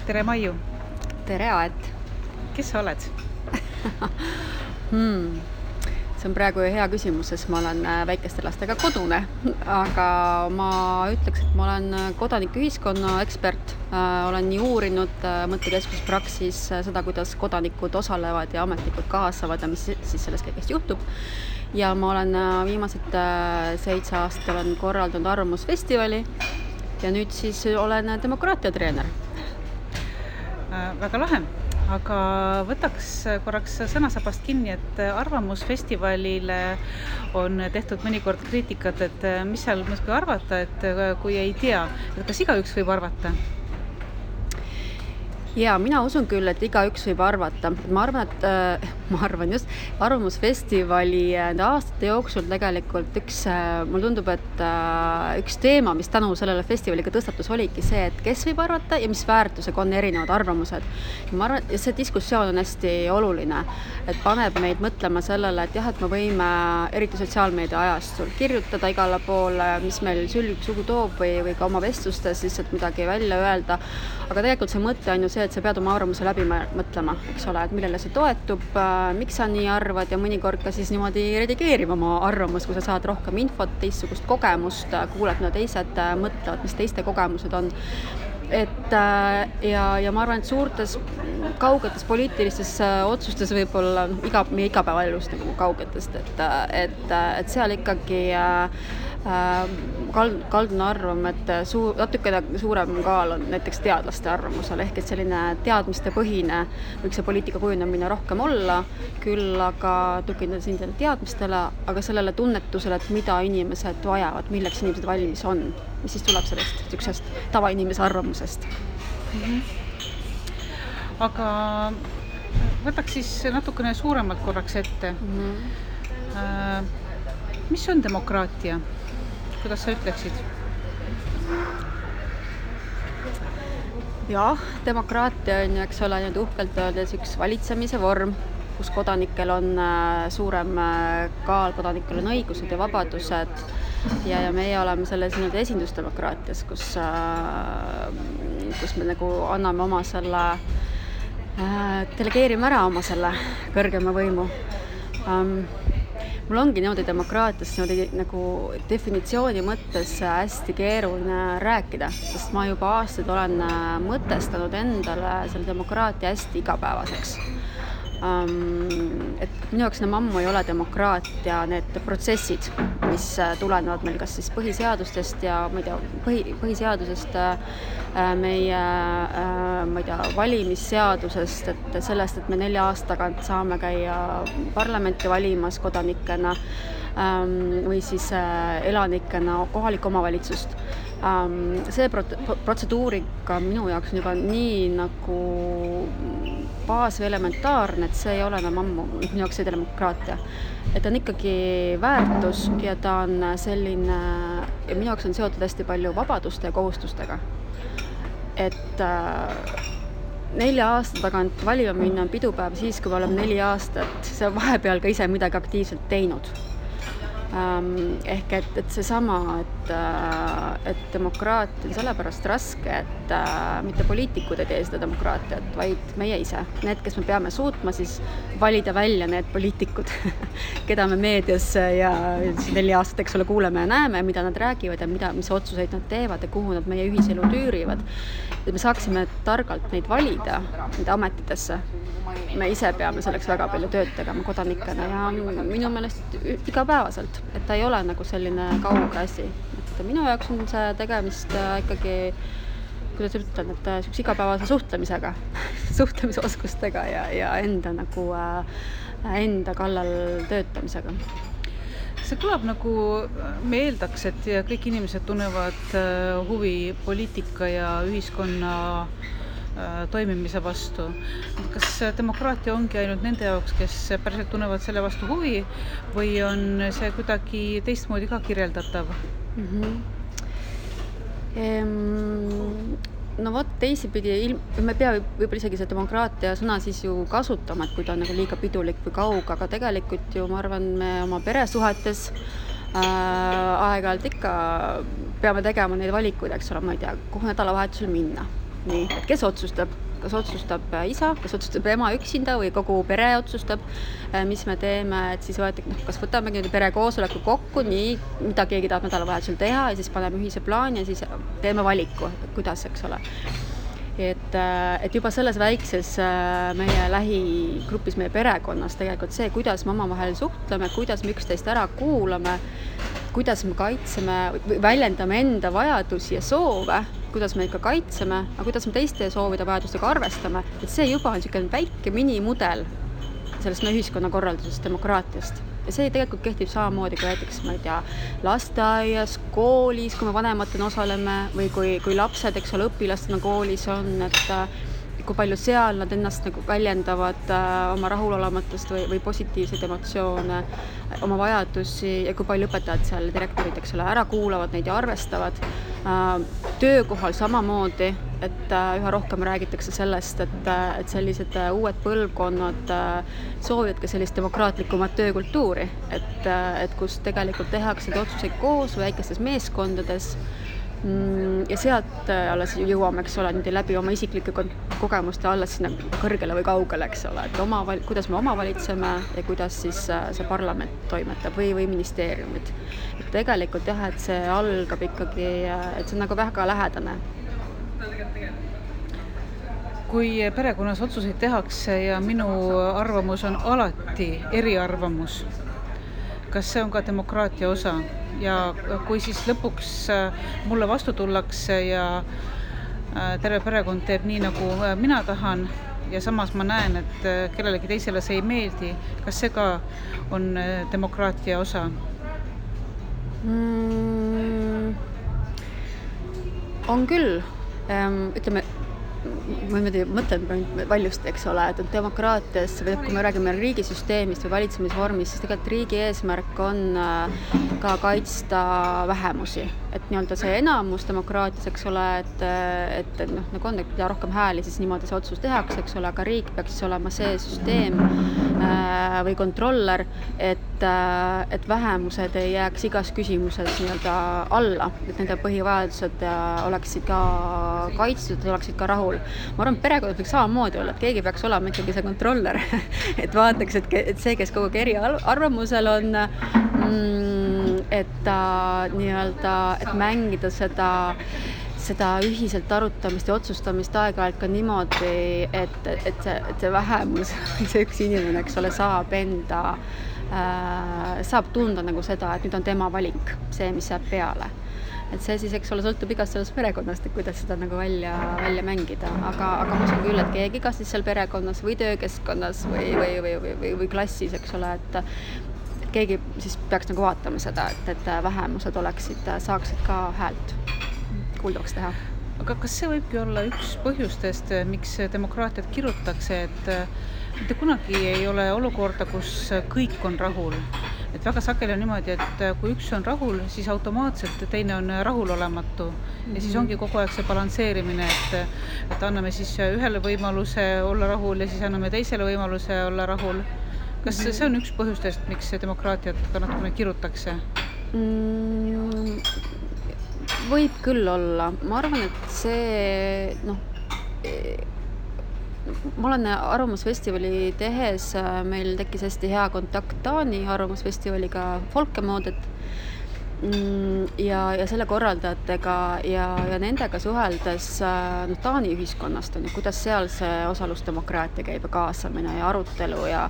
Tere, Maiu! Tere, Aet! Kes sa oled? See on praegu hea küsimus, sest ma olen väikeste lastega kodune, aga ma ütleks, et ma olen kodanikuühiskonna ekspert. Olen nii uurinud mõttekeskus Praxis seda, kuidas kodanikud osalevad ja ametnikud kaasavad ja mis siis selles kõigest juhtub. Ja ma olen viimased 7 aastat olen korraldanud arvamusfestivali ja nüüd siis olen demokraatiatreener. Väga lahe, aga võtaks korraks sõnasabast kinni, et arvamusfestivalile on tehtud mõnikord kriitikat, et mis seal mõisku arvata, et kui ei tea, et kas igaüks võib arvata? Ja mina usun küll, et igaüks võib arvata. Ma arvan just, arvamusfestivali aastate jooksul tegelikult mulle tundub, et üks teema, mis tänu sellele festivaliga tõstatus, oligi see, et kes võib arvata ja mis väärtusega on erinevad arvamused. Ma arvan, et see diskussioon on hästi oluline, et paneb meid mõtlema sellele, et jah, et me võime eriti sotsiaalmeedia ajastul kirjutada igale poole, mis meil sülg sugu toob või ka oma vestlustes lihtsalt midagi välja öelda, aga tegelikult see mõte on ju see, et sa pead oma arvamuse läbi mõtlema, eks ole, et millele see toetub, miks sa nii arvad ja mõnikord ka siis niimoodi redigeerima oma arvamus, kui sa saad rohkem infot, teistsugust kogemust, kuuled, mida teised mõtlevad, mis teiste kogemused on. Ja ma arvan, et suurtes kaugetes poliitilistes otsustes võib-olla meie igapäevaelust nagu kaugetest, et seal ikkagi kaldun arvama, et natukene suurem kaal on näiteks teadlaste arvamusel, ehk et selline teadmiste põhine võiks see poliitika kujunemine rohkem olla, küll aga tugineda siin teadmistele, aga sellele tunnetusele, et mida inimesed vajavad, milleks inimesed valmis on, mis siis tuleb sellest tavainimese arvamusest. Aga võtaks siis natukene suuremalt korraks ette. Mis on demokraatia? Kuidas sa ütleksid? Jah, demokraatia on, eks ole, nüüd uhkelt öeldes üks valitsemise vorm, kus kodanikel on suurem kaal, kodanikel on õigused ja vabadused ja meie oleme selles esindusdemokraatias, kus me nagu anname oma selle, delegeerime ära oma selle kõrgema võimu. Mul ongi niimoodi demokraatias nagu definitsiooni mõttes hästi keeruline rääkida, sest ma juba aastaid olen mõtestanud endale selle demokraatia hästi igapäevaseks. Et minu jaoks ammu ei ole demokraatia need protsessid, mis tulenevad meil kas siis põhiseadustest ja põhiseadusest, meie valimisseadusest, et sellest, et me 4 aasta tagant saame käia parlamenti valimas kodanikena või siis elanikena kohalikku omavalitsust. See protseduurika minu jaoks on juba nii nagu baas või elementaarne, et see ei ole enam ammu minu jaoks see demokraatia. Et on ikkagi väärtus ja ta on selline, ja minu jaoks on seotud hästi palju vabaduste ja kohustustega. Et 4 aasta tagant valima minna on pidupäev siis, kui me oleme 4 aastat, see vahepeal ka ise midagi aktiivselt teinud. Ehk et seesama, et demokraatia on sellepärast raske, et mitte poliitikud ei tee seda demokraatiat, vaid meie ise. Need, kes me peame suutma siis valida välja need poliitikud, keda me meedias ja 4 aastat, eks ole, kuuleme ja näeme, mida nad räägivad ja mis otsuseid nad teevad ja kuhu nad meie ühiselu tüürivad. Et me saaksime targalt neid valida, neid ametitesse. Me ise peame selleks väga palju tööd tegema kodanikena ja minu meelest igapäevaselt, et ta ei ole nagu selline kauge asi. Et minu jaoks on see tegemist ikkagi, kuidas ütlen, et üks igapäevase suhtlemisega, suhtlemisoskustega ja enda kallal töötamisega. See kõlab nagu me eeldaks, et kõik inimesed tunnevad huvi poliitika ja ühiskonna toimimise vastu. Kas demokraatia ongi ainult nende jaoks, kes päriselt tunnevad selle vastu huvi või on see kuidagi teistmoodi ka kirjeldatav? No vot, teisipidi, me pea võib-olla isegi see demokraatia sõna siis ju kasutama, et kui ta on nagu liiga pidulik või kauge, aga tegelikult ju ma arvan, me oma peresuhetes aeg-ajalt ikka peame tegema neid valikuid, eks ole, ma ei tea, kuhu nädalavahetusel minna. nii, et kes otsustab, kas otsustab isa, kas otsustab ema üksinda või kogu pere otsustab, mis me teeme, et siis kas võtamegi perekoosoleku kokku, nii, mida keegi tahab nädalavahetusel teha ja siis paneme ühise plaani ja siis teeme valiku, kuidas, eks ole. Et juba selles väikses meie lähigrupis, meie perekonnas tegelikult see, kuidas me omavahel suhtleme, kuidas me üksteist ära kuulame, kuidas me kaitseme, väljendame enda vajadusi ja soove, kuidas me ikka kaitseme, aga kuidas me teiste soovide vajadustega arvestame, et see juba on niisugune väike minimudel sellest meie ühiskonnakorraldusest, demokraatiast. Ja see tegelikult kehtib samamoodi kui näiteks, ma ei tea, lasteaias, koolis, kui me vanematena osaleme või kui lapsed, eks ole, õpilastena koolis on, et kui palju seal nad ennast nagu väljendavad oma rahulolematust või positiivseid emotsioone, oma vajadusi ja kui palju õpetajad seal, direktorid, eks ole, ära kuulavad neid ja arvestavad. Töökohal samamoodi, et üha rohkem räägitakse sellest, et sellised uued põlvkonnad soovivad ka sellist demokraatlikumat töökultuuri, et kus tegelikult tehakse otsuseid koos väikestes meeskondades ja sealt alles jõuame, eks ole, läbi oma isiklike kogemuste alles sinna kõrgele või kaugele, eks ole, et kuidas me omavalitseme ja kuidas siis see parlament toimetab või ministeeriumid. Et tegelikult jah, et see algab ikkagi, et see on nagu väga lähedane. Kui perekonnas otsuseid tehakse ja minu arvamus on alati eriarvamus, kas see on ka demokraatia osa? Ja kui siis lõpuks mulle vastu tullakse ja terve perekond teeb nii, nagu mina tahan ja samas ma näen, et kellelegi teisele see ei meeldi, kas see ka on demokraatia osa? On küll. Ütleme, ma mõtlen valjusti, eks ole, et demokraatias, või kui me räägime riigisüsteemist või valitsemisvormist, siis tegelikult riigi eesmärk on ka kaitsta vähemusi. Et nii-öelda see enamus demokraatias, eks ole, et nagu on, et mida rohkem hääli, siis niimoodi see otsus tehakse, eks ole, aga riik peaks siis olema see süsteem või kontroller, et vähemused ei jääks igas küsimuses nii-öelda alla, et nende põhivajadused oleksid ka kaitstud, oleksid ka rahul. Ma arvan, et perekonnas võiks samamoodi olla, et keegi peaks olema ikkagi see kontroller, et vaataks, et see, kes kogu aeg eriarvamusel on, et nii-öelda, et mängida seda ühiselt arutamist ja otsustamist aeg-ajalt ka niimoodi, et see vähemus, see üks inimene, eks ole, saab tunda nagu seda, et nüüd on tema valik, see, mis jääb peale. Et see siis, eks ole, sõltub igast sellest perekonnast, et kuidas seda nagu välja mängida. Aga ma usun küll, et keegi kas siis seal perekonnas või töökeskkonnas või klassis, eks ole, et keegi siis peaks nagu vaatama seda, et vähemused saaksid ka häält kuuldavaks teha. Aga kas see võibki olla üks põhjustest, miks demokraatiat kirutakse, et mitte kunagi ei ole olukorda, kus kõik on rahul? Et väga sageli on niimoodi, et kui üks on rahul, siis automaatselt teine on rahulolematu. Ja siis ongi kogu aeg see balansseerimine, et anname siis ühele võimaluse olla rahul ja siis anname teisele võimaluse olla rahul. Kas see on üks põhjustest, miks demokraatiat ka natukene kirutakse? Võib küll olla. Ma arvan, et see, ma olen Arvamusfestivali tehes, meil tekkis hästi hea kontakt Taani Arvamusfestivaliga Folkemodet ja selle korraldajatega ja nendega suheldes Taani ühiskonnast on ja kuidas seal see osalusdemokraatia käib ja kaasamine ja arutelu ja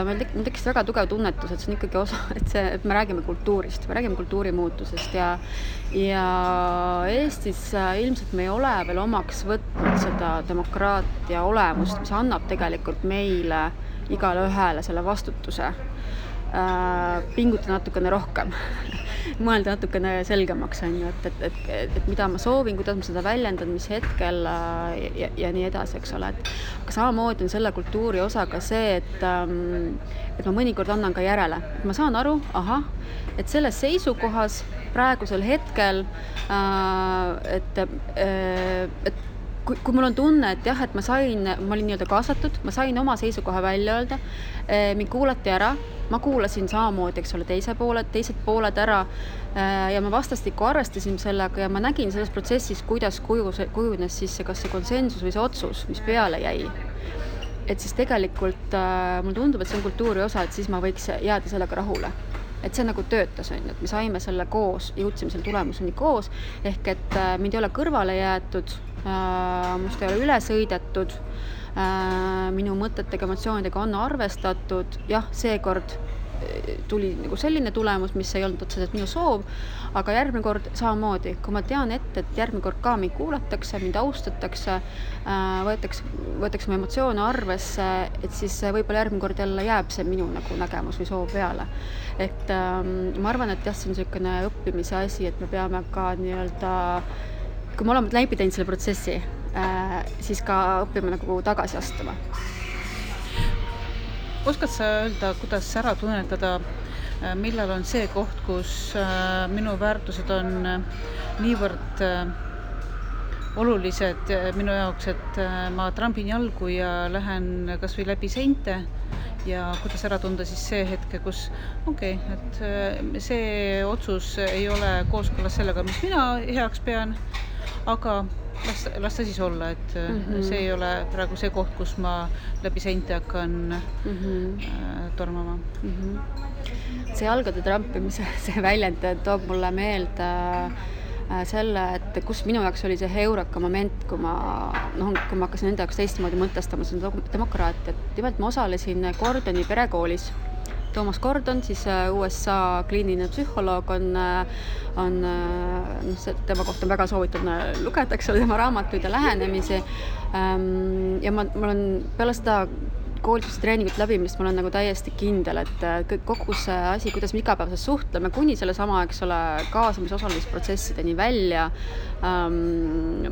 meil tekkis väga tugev tunnetus, et see on ikkagi osa, et me räägime kultuurist, me räägime kultuurimuutusest ja Eestis ilmselt me ei ole veel omaks võtnud seda demokraatia olemust, mis annab tegelikult meile igale ühele selle vastutuse pingutada natukene rohkem, mõelda natukene selgemaks, et mida ma soovin, kuidas ma seda väljendan, mis hetkel ja nii edasi, eks ole. Aga samamoodi on selle kultuuri osa ka see, et ma mõnikord annan ka järele. Et ma saan aru, et selles seisukohas praegusel hetkel, et kui mul on tunne, et jah, et ma olin nii-öelda kaasatud, ma sain oma seisukoha välja öelda, mind kuulati ära, ma kuulasin samamoodi, eks ole, teised pooled ära ja me vastastikku arvestasime sellega ja ma nägin selles protsessis, kuidas kujunes siis kas see konsensus või see otsus, mis peale jäi. Et siis tegelikult mulle tundub, et see on kultuuri osa, et siis ma võiks jääda sellega rahule. Et see nagu töötas, et me saime selle koos, jõudsime selle tulemuseni koos, ehk et mind ei ole kõrvale jäetud, must ei ole üle sõidetud, minu mõtetega, emotsioonidega on arvestatud, jah, seekord tuli nagu selline tulemus, mis ei olnud otseselt minu soov, aga järgmine kord samamoodi, kui ma tean ette, et järgmine kord ka mind kuulatakse, mind austatakse, võetakse mu emotsioone arvesse, et siis võib-olla järgmine kord jälle jääb see minu nagu nägemus või soov peale. Et ma arvan, et jah, see on selline õppimise asi, et me peame ka nii-öelda, kui me oleme läbi teinud selle protsessi, siis ka õppime nagu tagasi astuma. Oskad sa öelda, kuidas ära tunnetada, millal on see koht, kus minu väärtused on niivõrd olulised minu jaoks, et ma trambin jalgu ja lähen kas või läbi seinte ja kuidas ära tunda siis see hetke, kus et see otsus ei ole kooskõlas sellega, mis mina heaks pean, aga las ta siis olla, et see ei ole praegu see koht, kus ma läbi seinte hakkan tormama. See jalgade trampimise, see väljend toob mulle meelde selle, et kus minu jaoks oli see heureka moment, kui ma hakkasin enda jaoks teistmoodi mõtestama seda demokraatiat. Nimelt ma osalesin Gordoni perekoolis. Thomas Gordon, siis USA kliiniline psühholoog tema kohta on väga soovitav lugeda, eks ole, tema raamatuid ja lähenemisi. Ja ma olen peale seda koolituse treeningut läbimist, ma olen nagu täiesti kindel, et kogu see asi, kuidas me igapäevaselt suhtleme, kuni selle sama, eks ole, kaasamise osalemisprotsessideni välja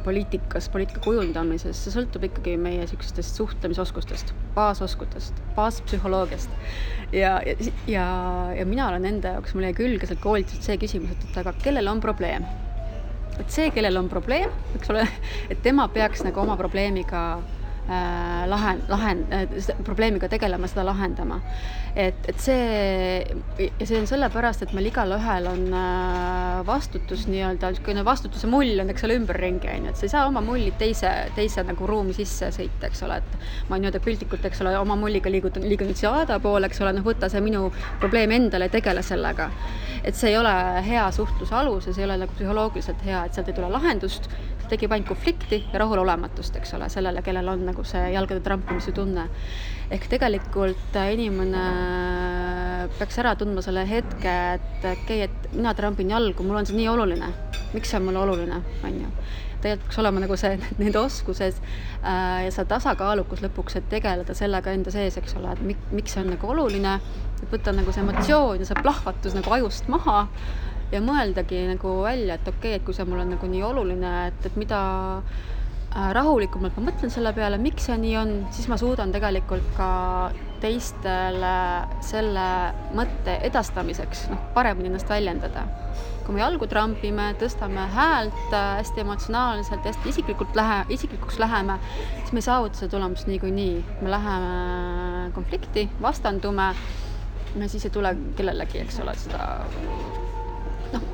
poliitika kujundamises, see sõltub ikkagi meie sükestest suhtlemisoskustest, baaspsühholoogiast. Ja mina olen enda jaoks, mul jäi külge seal koolitused see küsimus, et aga kellel on probleem? Et see, kellel on probleem, eks ole, et tema peaks nagu oma probleemiga probleemiga tegelema, seda lahendama. Et see on sellepärast, et meil igal ühel on vastutus nii-öelda, vastutuse mull on, eks ole, ümberringi, et sa ei saa oma mulli teise nagu ruumi sisse sõita, eks ole, et ma nii-öelda piltlikult, eks ole, oma mulliga liigun siia aada poole, eks ole, võtta see minu probleem endale ja tegele sellega. Et see ei ole hea suhtluse alus ja see ei ole nagu psühholoogiliselt hea, et sealt ei tule lahendust, tekib ainult konflikti ja rahulolematust, eks ole, sellele, kellel on nagu see jalgade trampimise tunne. Ehk tegelikult inimene peaks ära tundma selle hetke, et mina trampin jalgu, mul on see nii oluline. Miks see on mulle oluline, on ju? Tegelikult peaks olema nagu see nende oskuses ja see tasakaalukus lõpuks, et tegeleda sellega enda sees, eks ole, et miks see on nagu oluline, et võtta nagu see emotsioon ja see plahvatus nagu ajust maha ja mõeldagi nagu välja, et et kui see mul on nagu nii oluline, et mida rahulikumalt ma mõtlen selle peale, miks see nii on, siis ma suudan tegelikult ka teistele selle mõtte edastamiseks paremini ennast väljendada. Kui me jalgu trampime, tõstame häält hästi emotsionaalselt, hästi isiklikuks läheme, siis me ei saavuta seda tulemust niikuinii. Me läheme konflikti, vastandume ja siis ei tule kellelegi, eks ole, seda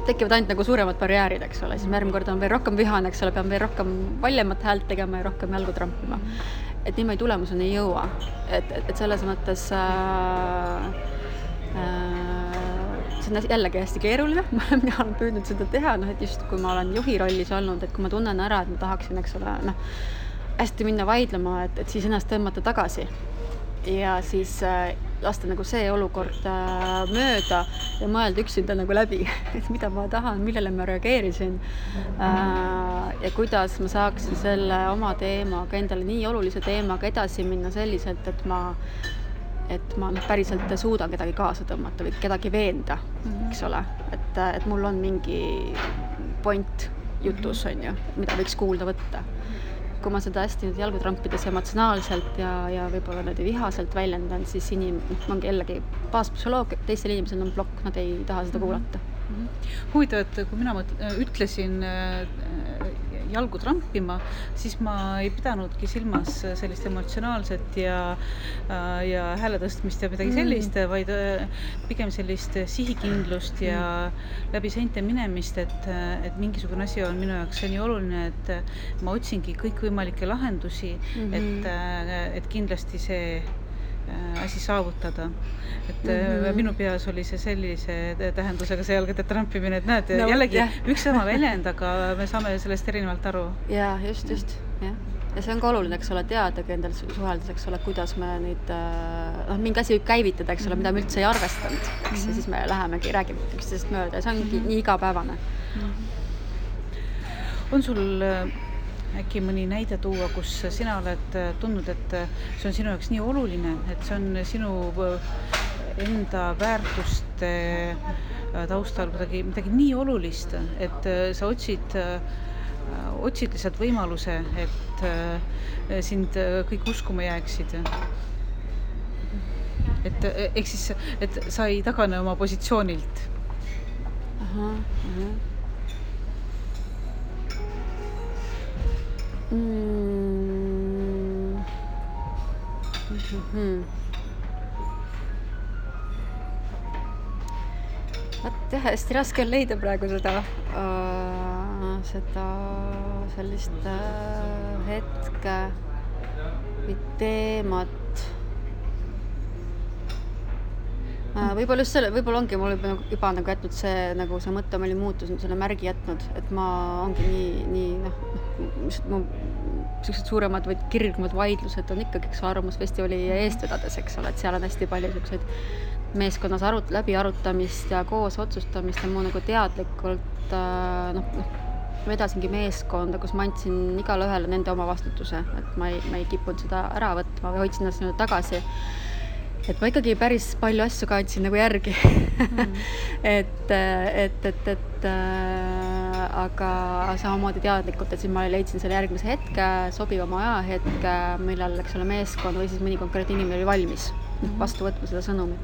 tekivad ainult nagu suuremad barjäärid, eks ole, siis järgmine kord on veel rohkem vihane, eks ole, peame veel rohkem valjemat häält tegema ja rohkem jalgu trampima. Et niimoodi tulemuseni ei jõua. Et selles mõttes see on jällegi hästi keeruline, mina olen püüdnud seda teha, et just kui ma olen juhi rollis olnud, et kui ma tunnen ära, et ma tahaksin, eks ole, hästi minna vaidlema, et siis ennast tõmmata tagasi ja siis lasta nagu see olukord mööda ja mõelda üksinda nagu läbi, et mida ma tahan, millele ma reageerisin ja kuidas ma saaksin selle oma teemaga, endale nii olulise teemaga edasi minna selliselt, et ma päriselt suudan kedagi kaasa tõmmata või kedagi veenda, eks ole, et mul on mingi point jutus, on ju, mida võiks kuulda võtta. Kui ma seda hästi jalgu trampides emotsionaalselt ja võib-olla vihaselt väljendan, siis ongi jällegi baaspsühholoog, teistel inimesel on plokk, nad ei taha seda kuulata. Huvitav, et kui mina ütlesin jalgu trampima, siis ma ei pidanudki silmas sellist emotsionaalset ja hääle tõstmist ja midagi sellist, vaid pigem sellist sihikindlust ja läbi seinte minemist, et mingisugune asi on minu jaoks nii oluline, et ma otsingi kõikvõimalikke lahendusi, et kindlasti see asi saavutada. Et minu peas oli see sellise tähendusega see jalgade trampimine, et näed, jällegi üks sama väljend, aga me saame sellest erinevalt aru. Jaa, just, jah. Ja see on ka oluline, eks ole, teadagi endal suheldes, eks ole, kuidas me neid, mingi asi võib käivitada, eks ole, mida me üldse ei arvestanud, eks, ja siis me lähemegi, räägime üksteisest mööda ja see ongi nii igapäevane. On sul äkki mõni näide tuua, kus sina oled tundnud, et see on sinu jaoks nii oluline, et see on sinu enda väärtuste taustal midagi nii olulist, et sa otsid lihtsalt võimaluse, et sind kõik uskuma jääksid. Ehk siis, et sa ei tagane oma positsioonilt. Jah, hästi raske on leida praegu seda sellist hetke või teemat. Võib-olla just selle, võib-olla ongi mul juba nagu jätnud see mõte, ma olin muutus selle märgi jätnud, et ma ongi nii sellised suuremad või kirgumad vaidlused on ikkagi Arvamusfestivali eest vedades, eks ole, et seal on hästi palju selliseid meeskonnas läbi arutamist ja koos otsustamist ja mu nagu teadlikult vedasingi meeskonda, kus ma andsin igale ühele nende oma vastutuse, et ma ei kippunud seda ära võtma või hoidsin ennast tagasi. Et ma ikkagi päris palju asju ka andsin nagu järgi. Aga samamoodi teadlikult, et siis ma leidsin selle järgmise hetke, sobivama ajahetke, millal, eks ole, meeskond või siis mõni konkreetne inimene oli valmis vastu võtma seda sõnumit.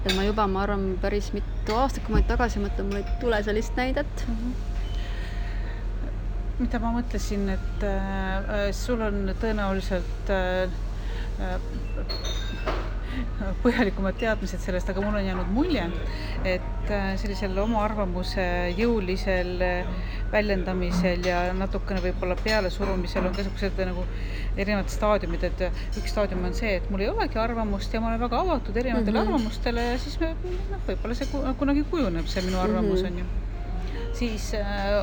Et ma arvan, päris mitu aastat, kui ma tagasi mõtlen, mul ei tule sellist näidet. Mida ma mõtlesin, et sul on tõenäoliselt põhjalikumad teadmised sellest, aga mul on jäänud mulje, et sellisel oma arvamuse jõulisel väljendamisel ja natukene võib-olla pealesurumisel on keskused nagu erinevad staadiumid, et üks staadium on see, et mul ei olegi arvamust ja ma olen väga avatud erinevatele arvamustele ja siis võib-olla see kunagi kujuneb, see minu arvamus on ju. Siis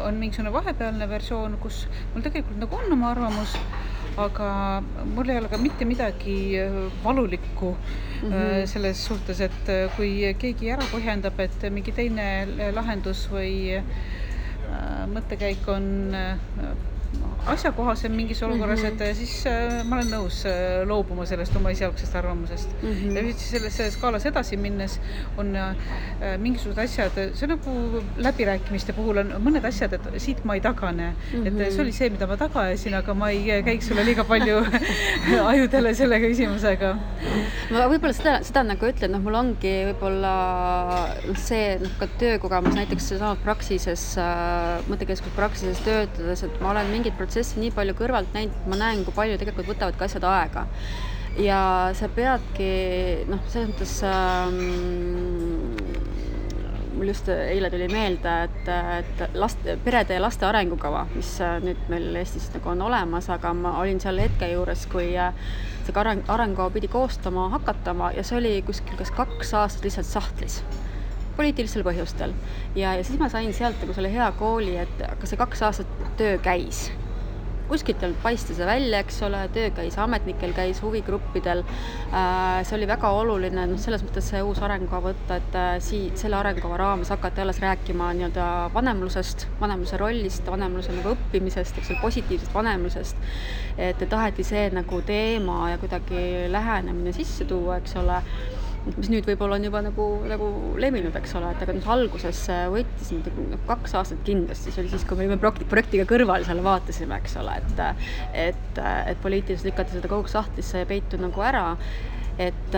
on mingisugune vahepealne versioon, kus mul tegelikult nagu on oma arvamus, aga mul ei ole ka mitte midagi valulikku selles suhtes, et kui keegi ära põhjendab, et mingi teine lahendus või mõttekäik on asjakohasem mingis olukorras, et siis ma olen nõus loobuma sellest oma esialgsest arvamusest. Ja selle skaalas edasi minnes on mingisugused asjad, see nagu läbirääkimiste puhul on mõned asjad, et siit ma ei tagane. Et see oli see, mida ma tagajasin, aga ma ei käiks sulle liiga palju ajudele selle küsimusega. Ma võib-olla seda nagu ütlen, mul ongi võib-olla see ka töökogemus näiteks samas praksises, mõttekeskus praksises töötades, et ma olen mingid protsessi nii palju kõrvalt näinud, ma näen, kui palju tegelikult võtavad ka asjad aega. Ja sa peadki, selles mõttes mul just eile tuli meelde, et perede ja laste arengukava, mis nüüd meil Eestis nagu on olemas, aga ma olin seal hetke juures, kui see arengukava pidi koostama, hakatama ja see oli kuskil kas 2 aastat lihtsalt sahtlis. Poliitilistel põhjustel. Ja siis ma sain sealt nagu selle hea kooli, et aga see 2 aastat töö käis. Kuskilt paistis see välja, eks ole, töö käis ametnikel, käis huvigruppidel. See oli väga oluline, selles mõttes see uus arengukava võtta, et selle arengukava raames hakati alles rääkima nii-öelda vanemlusest, vanemluse rollist, vanemluse nagu õppimisest, eks ole, positiivsest vanemlusest. Et taheti see nagu teema ja kuidagi lähenemine sisse tuua, eks ole, mis nüüd võib-olla on juba nagu levinud, eks ole, et aga alguses võttis 2 aastat kindlasti, see oli siis, kui me olime projektiga kõrval seal vaatasime, eks ole, et poliitiliselt lükati seda kogu sahtlisse ja peitu nagu ära, et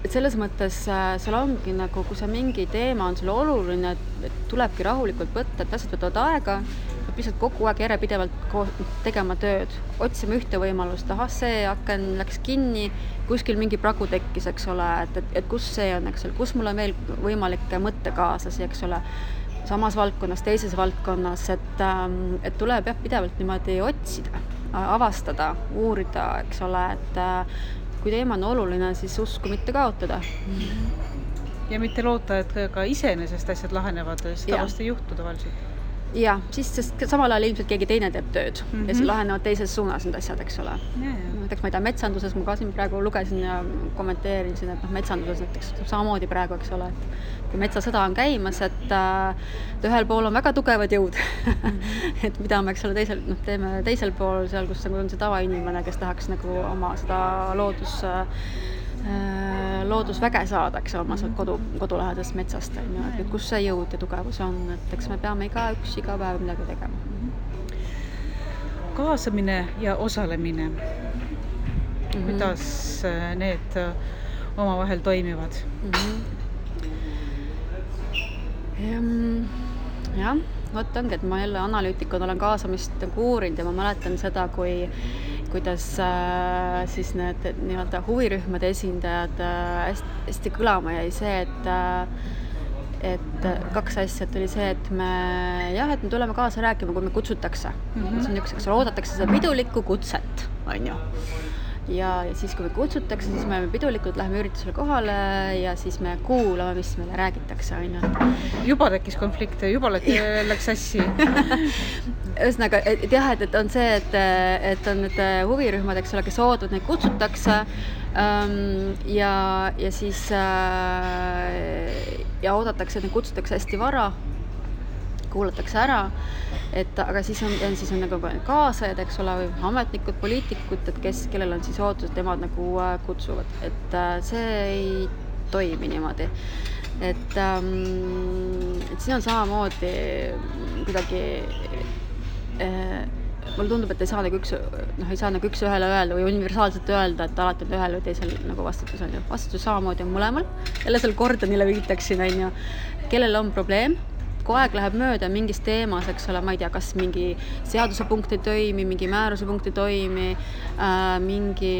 selles mõttes seal ongi nagu, kui see mingi teema on sulle oluline, et tulebki rahulikult võtta, et asjad võtavad aega, lihtsalt kogu aeg järjepidevalt tegema tööd, otsima ühte võimalust, see aken läks kinni, kuskil mingi pragu tekkis, eks ole, et kus see on, eks ole, kus mul on veel võimalik mõttekaaslasi, eks ole, samas valdkonnas, teises valdkonnas, et tuleb jah pidevalt niimoodi otsida, avastada, uurida, eks ole, et kui teema on oluline, siis usku mitte kaotada. Ja mitte loota, et ka iseenesest asjad lahenevad, seda vast ei juhtu tavaliselt. Jah, siis sest samal ajal ilmselt keegi teine teeb tööd ja siis lahenevad teises suunas need asjad, eks ole. Näiteks ma ei tea, metsanduses ma ka siin praegu lugesin ja kommenteerisin, et metsanduses näiteks samamoodi praegu, eks ole, et kui metsasõda on käimas, et ühel pool on väga tugevad jõud, et mida me, eks ole, teeme teisel pool seal, kus on see tavainimene, kes tahaks nagu oma seda loodusväge saada, eks oma kodulähedast metsast, et kus see jõud ja tugevus on, et eks me peame iga päev midagi tegema. Kaasamine ja osalemine. Kuidas need omavahel toimivad? Jah, vot ongi, et ma jälle analüütikuna olen kaasamist uurinud ja ma mäletan seda, kuidas siis need nii-öelda huvirühmade esindajad hästi kõlama jäi see, et kaks asja, et oli see, et me tuleme kaasa rääkima, kui me kutsutakse. See on üks, eks oodatakse seda pidulikku kutset, on ju. Ja siis, kui me kutsutakse, siis me pidulikult läheme üritusele kohale ja siis me kuulame, mis meile räägitakse, on ju. Juba tekkis konflikte, juba läks sassi. Ühesõnaga, et jah, et on see, et on need huvirühmad, eks ole, kes oodavad, neid kutsutakse ja siis ja oodatakse, et neid kutsutakse hästi vara, kuulatakse ära, aga siis on nagu kaasajad, eks ole, või ametnikud, poliitikud, et kellel on siis ootus, et nemad nagu kutsuvad, et see ei toimi niimoodi. Et siin on samamoodi kuidagi mulle tundub, et ei saa nagu üks ühele öelda või universaalselt öelda, et alati on ühel või teisel nagu vastutus on ju. Vastutus samamoodi on mõlemal. Jälle seal Gordonile viitaksin, on ju, kellel on probleem, kui aeg läheb mööda mingis teemas, eks ole, ma ei tea, kas mingi seaduse punkt ei toimi, mingi määruse punkt ei toimi, mingi,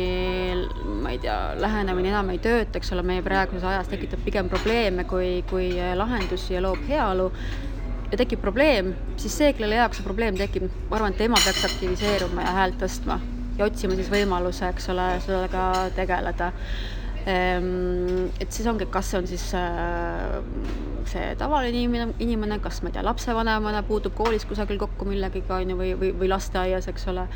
ma ei tea, lähenemine enam ei tööta, eks ole, meie praeguses ajas tekitab pigem probleeme kui lahendusi ja loob heaolu. Ja tekib probleem, siis see, kellele jaoks see probleem tekib, ma arvan, et tema peaks aktiviseeruma ja häält tõstma ja otsima siis võimaluse, eks ole, sellega tegeleda. Et siis ongi, kas see on siis see tavaline inimene, kas ma ei tea, lapsevanemana puutub koolis kusagil kokku millegiga või lasteaias, eks ole,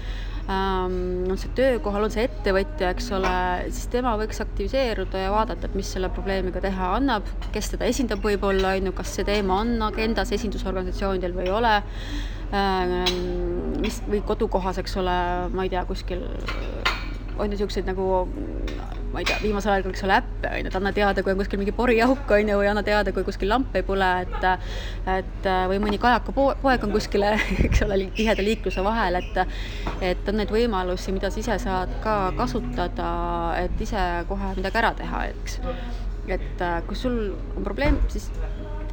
on see töökohal, on see ettevõtja, eks ole, siis tema võiks aktiviseeruda ja vaadata, et mis selle probleemiga teha annab, kes teda esindab võib-olla, kas see teema on agendas esindusorganisatsioonidel või ei ole, või kodukohas, eks ole, ma ei tea, kuskil on ju siukseid nagu, ma ei tea, viimasel ajal, eks ole, äppe, et anna teada, kui on kuskil mingi porijauk, või anna teada, kui kuskil lamp ei põle, et või mõni kajaka poeg on kuskile, eks ole, tiheda liikluse vahel, et on neid võimalusi, mida sa ise saad ka kasutada, et ise kohe midagi ära teha, eks. Et kui sul on probleem, siis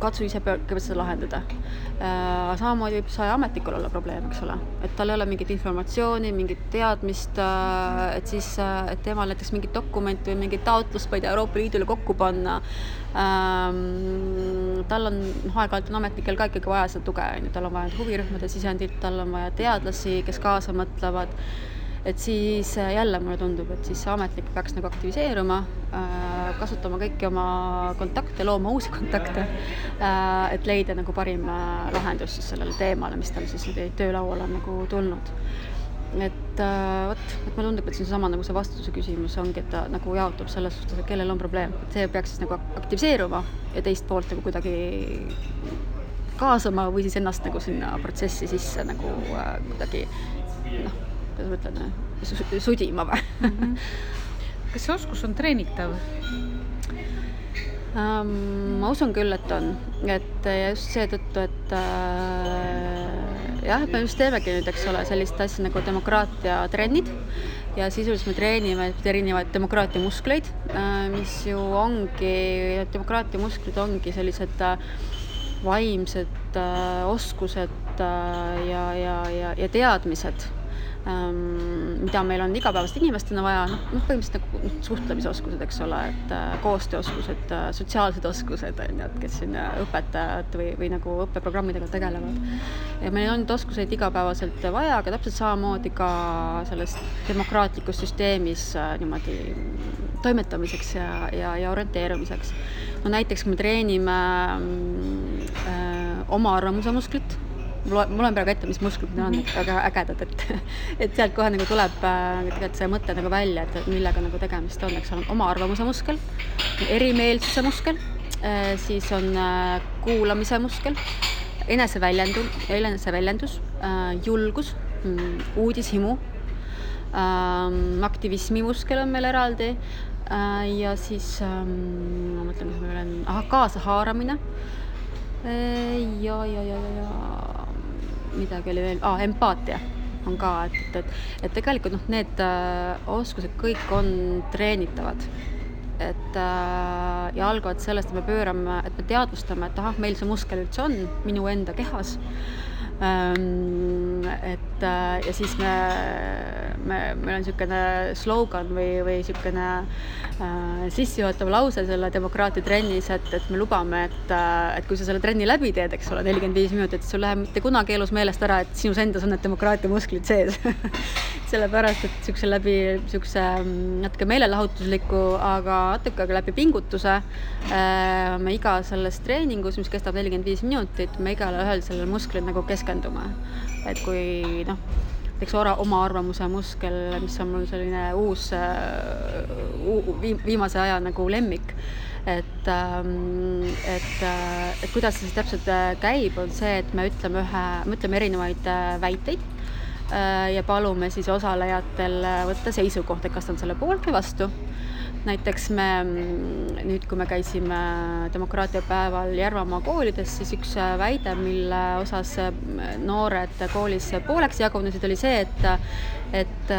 katsu ise kõigepealt seda lahendada. Samamoodi võib see ametnikul olla probleem, eks ole, et tal ei ole mingit informatsiooni, mingit teadmist, et siis, et temal näiteks mingit dokumenti või mingit taotlust, ma ei tea, Euroopa Liidule kokku panna. Tal on aeg-ajalt ametnikel ka ikkagi vaja seda tuge, tal on vaja huvirühmade sisendit, tal on vaja teadlasi, kes kaasa mõtlevad. Et siis jälle mulle tundub, et siis ametnik peaks nagu aktiviseeruma, kasutama kõiki oma kontakte, looma uusi kontakte, et leida nagu parim lahendus siis sellele teemale, mis tal siis töölaual on nagu tulnud. Et mulle tundub, et see on sama nagu see vastutuse küsimus ongi, et ta nagu jaotub selles suhtes, et kellel on probleem. Et see peaks siis nagu aktiviseeruma ja teist poolt nagu kuidagi kaasama või siis ennast nagu sinna protsessi sisse nagu kuidagi kuidas ma ütlen, sudima või? Kas see oskus on treenitav? Ma usun küll, et on. Et just seetõttu, et jah, me just teemegi nüüd, eks ole, sellist asja nagu demokraatia trennid ja sisuliselt me treenime erinevaid demokraatia muskleid, mis ju ongi, demokraatia musklid ongi sellised vaimsed oskused ja teadmised, mida meil on igapäevast inimestena vaja, põhimõtteliselt nagu suhtlemisoskused, eks ole, et koostööoskused, sotsiaalsed oskused, on ju, et kes siin õpetajad või nagu õppeprogrammidega tegelevad. Ja meil on neid oskuseid igapäevaselt vaja, aga täpselt samamoodi ka selles demokraatlikus süsteemis niimoodi toimetamiseks ja orienteerumiseks. No näiteks me treenime oma arvamuse musklit. Mul on praegu ette, mis musklid on, väga ägedad, et sealt kohe nagu tuleb tegelikult see mõte nagu välja, et millega nagu tegemist on, eks on oma arvamuse muskel, erimeelsuse muskel, siis on kuulamise muskel, eneseväljendus, julgus, uudishimu, aktivismi muskel on meil eraldi ja siis ma mõtlen, mis meil on, kaasahaaramine ja midagi oli veel, empaatia on ka, et tegelikult need oskused kõik on treenitavad, et ja algavad sellest, et me teadvustame, et meil see muskel üldse on minu enda kehas, et ja siis meil on niisugune slogan või niisugune sissejuhatav lause selle demokraatia trennis, et me lubame, et kui sa selle trenni läbi teed, eks ole, 45 minutit, sul läheb mitte kunagi elus meelest ära, et sinus endas on need demokraatia musklid sees. Sellepärast, et läbi natuke meelelahutusliku, aga natuke läbi pingutuse me iga selles treeningus, mis kestab 45 minutit, me igale ühel sellel musklil nagu keskendume. Et kui näiteks oma arvamuse muskel, mis on mul selline uus viimase aja nagu lemmik, et kuidas see siis täpselt käib, on see, et me ütleme erinevaid väiteid ja palume siis osalejatel võtta seisukoht, et kas on selle poolt või vastu. Näiteks me nüüd, kui me käisime demokraatia päeval Järvamaa koolides, siis üks väide, mille osas noored koolis pooleks jagunesid, oli see, et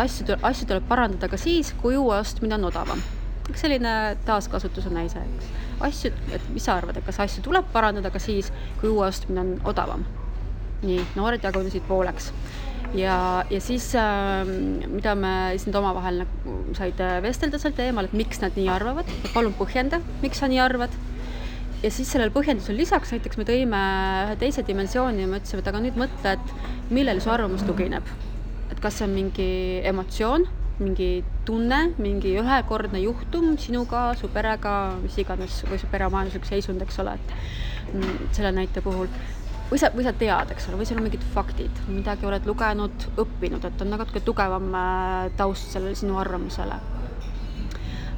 asju tuleb parandada ka siis, kui uue ostmine on odavam. Selline taaskasutuse näise. Et mis sa arvad, et kas asju tuleb parandada ka siis, kui uue ostmine on odavam? Nii, noored jagunesid pooleks. Ja siis, mida me siis omavahel said vestelda sel teemal, et miks nad nii arvavad, et palun põhjenda, miks sa nii arvad. Ja siis sellel põhjendusel lisaks näiteks me tõime ühe teise dimensiooni ja me ütlesime, et aga nüüd mõtle, et millele su arvamus tugineb. Et kas see on mingi emotsioon, mingi tunne, mingi ühekordne juhtum sinuga, su perega, mis iganes, või su peremajanduslik seisund, eks ole, et selle näite puhul. Või sa tead, eks ole, või seal on mingid faktid, midagi oled lugenud, õppinud, et on natuke tugevam taust sellele sinu arvamusele.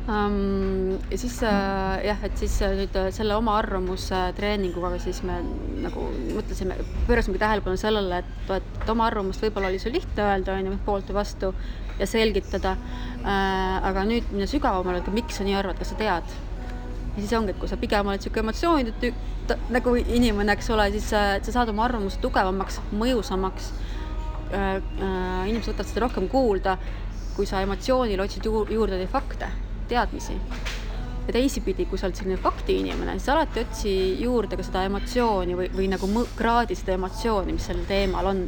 Ja siis, et siis nüüd selle oma arvamuse treeninguga siis me nagu mõtlesime, pöörasimegi tähelepanu sellele, et oma arvamust võib-olla oli sul lihtne öelda, poolt või vastu ja selgitada, aga nüüd minna sügavamale, et miks sa nii arvad, kas sa tead? Ja siis ongi, et kui sa pigem oled siuke emotsioonid, nagu inimene, eks ole, siis sa saad oma arvamuse tugevamaks, mõjusamaks. Inimesed võtavad seda rohkem kuulda, kui sa emotsioonil otsid juurde neid fakte, teadmisi. Ja teisipidi, kui sa oled selline fakti inimene, siis alati otsi juurde ka seda emotsiooni või nagu kraadi seda emotsiooni, mis sellel teemal on.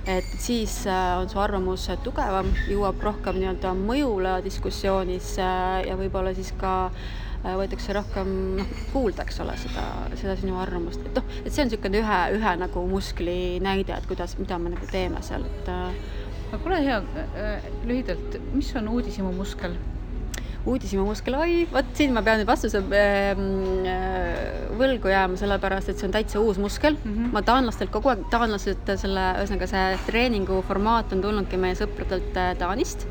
Et siis on su arvamus tugevam, jõuab rohkem nii-öelda mõjule diskussioonis ja võib-olla siis ka võetakse rohkem kuulda, eks ole, seda sinu arvamust. Et see on niisugune ühe nagu muskli näide, et mida me nagu teeme seal. Aga ole hea, lühidalt, mis on uudishimu muskel? Uudishimu muskel, võt siin ma pean nüüd vastuse võlgu jääma, sellepärast, et see on täitsa uus muskel. Ma taanlastelt kogu aeg, ühesõnaga see treeningu formaat on tulnudki meie sõpradelt Taanist.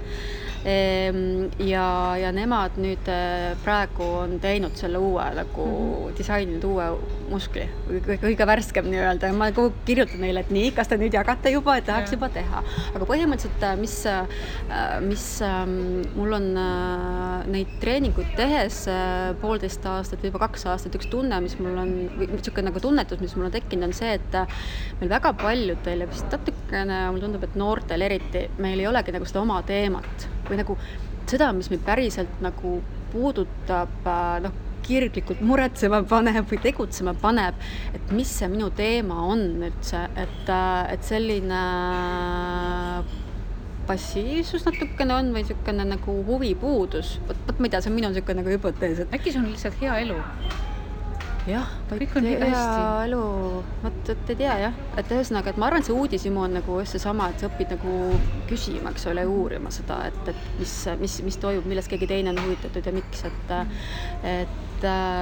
Ja nemad nüüd praegu on teinud selle uue disaininud uue muskli, kõige värskem nii-öelda. Ma kirjutan neile, et nii, kas te nüüd jagate juba, et tahaks juba teha. Aga põhimõtteliselt, mis mul on neid treeninguid tehes 1,5 aastat või juba 2 aastat, üks tunne, mis mul on, või niisugune nagu tunnetus, mis mul on tekkinud, on see, et meil väga paljudel ja vist natukene, mul tundub, et noortel eriti, meil ei olegi nagu seda oma teemat või nagu seda, mis meid päriselt nagu puudutab kirglikult muretsema paneb või tegutsema paneb, et mis see minu teema on üldse, et selline passiivsus natukene on või niisugune nagu huvipuudus. Vot ma ei tea, see on minu niisugune nagu hüpotees, et äkki see on lihtsalt hea elu? jah, Kõik on hästi. elu, vot ei tea jah, et ühesõnaga, et ma arvan, et see uudishimu on nagu just seesama, et sa õpid nagu küsima, eks ole, uurima seda, et mis toimub, millest keegi teine on huvitatud ja miks, et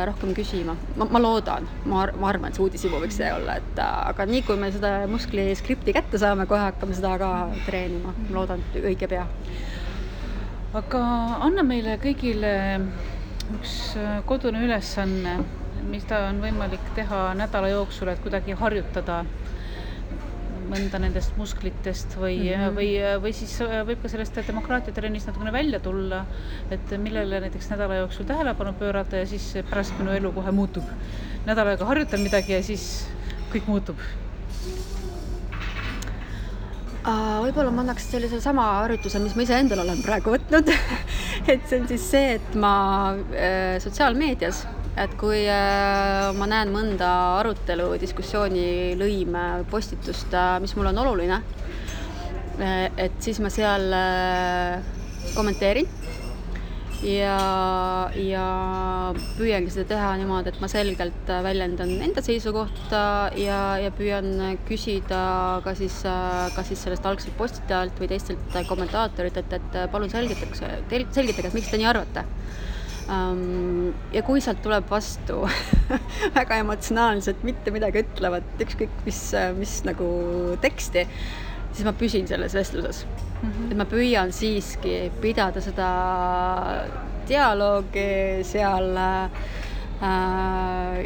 rohkem küsima. Ma loodan, ma arvan, et see uudishimu võiks see olla, et aga nii kui me seda muskli skripti kätte saame, kohe hakkame seda ka treenima. Ma loodan, et õige pea. Aga anna meile kõigile üks kodune ülesanne, mida on võimalik teha nädala jooksul, et kuidagi harjutada mõnda nendest musklitest või siis võib ka sellest demokraatiatrennist natukene välja tulla, et millele näiteks nädala jooksul tähelepanu pöörata ja siis pärast minu elu kohe muutub. Nädal aega harjutan midagi ja siis kõik muutub. Võib-olla ma annaks sellise sama harjutuse, mis ma ise endal olen praegu võtnud. Et see on siis see, et ma sotsiaalmeedias, et kui ma näen mõnda arutelu, diskussiooni, lõime, postitust, mis mul on oluline, et siis ma seal kommenteerin ja püüangi seda teha niimoodi, et ma selgelt väljendan enda seisukohta ja püüan küsida ka siis sellest algselt postitajalt või teistelt kommentaatorit, et palun selgitage, et miks te nii arvate. Ja kui sealt tuleb vastu väga emotsionaalselt mitte midagi ütlevad, ükskõik mis nagu teksti, siis ma püsin selles vestluses. Et ma püüan siiski pidada seda dialoogi seal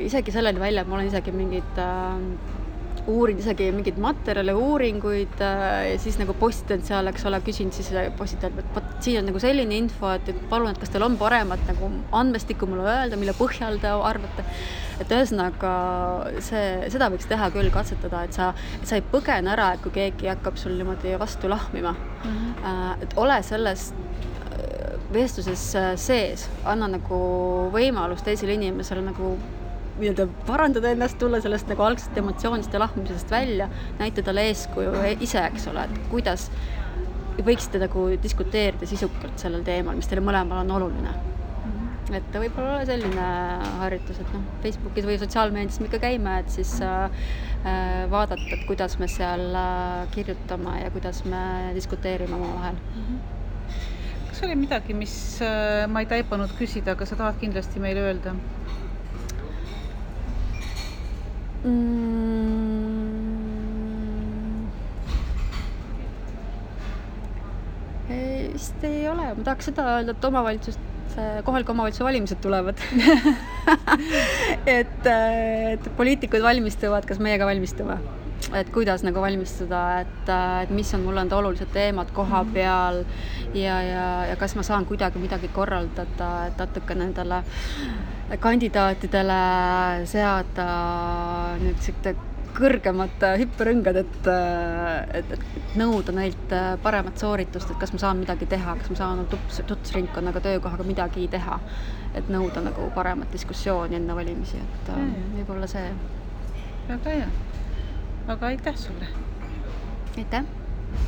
isegi selleni välja, et ma olen isegi uurin isegi mingeid materjale, uuringuid ja siis nagu postitan seal, eks ole, küsin siis postitajalt, et siin on nagu selline info, et palun, et kas teil on paremat nagu andmestikku mulle öelda, mille põhjal te arvate. Et ühesõnaga seda võiks teha küll, katsetada, et sa ei põgene ära, et kui keegi hakkab sul niimoodi vastu lahmima. Et ole selles vestluses sees, anna nagu võimalus teisele inimesele nagu parandada ennast, tulla sellest nagu algsest emotsioonist ja lahmimisest välja, näita talle eeskuju ise, eks ole, et kuidas võiksite nagu diskuteerida sisukalt sellel teemal, mis teile mõlemal on oluline. Et võib-olla ole selline harjutus, et Facebookis või sotsiaalmeedias me ikka käime, et siis vaadata, et kuidas me seal kirjutame ja kuidas me diskuteerime oma vahel. Kas oli midagi, mis ma ei taipanud küsida, aga sa tahad kindlasti meile öelda? Vist ei ole. Ma tahaks seda öelda, et kohaliku omavalitsuse valimised tulevad. et poliitikud valmistuvad, kas meiega valmistume? Et kuidas nagu valmistuda, et mis on mulle olulised teemad koha peal ja kas ma saan kuidagi midagi korraldada, et natuke nendele kandidaatidele seada nüüd kõrgemat hüpperõngad, et nõuda neilt paremat sooritust, et kas ma saan midagi teha, kas ma saan tutvusringkonnaga töökohaga midagi teha, et nõuda nagu paremat diskussiooni enne valimisi, et võib-olla see. Väga hea. Aga aitäh sulle! Aitäh!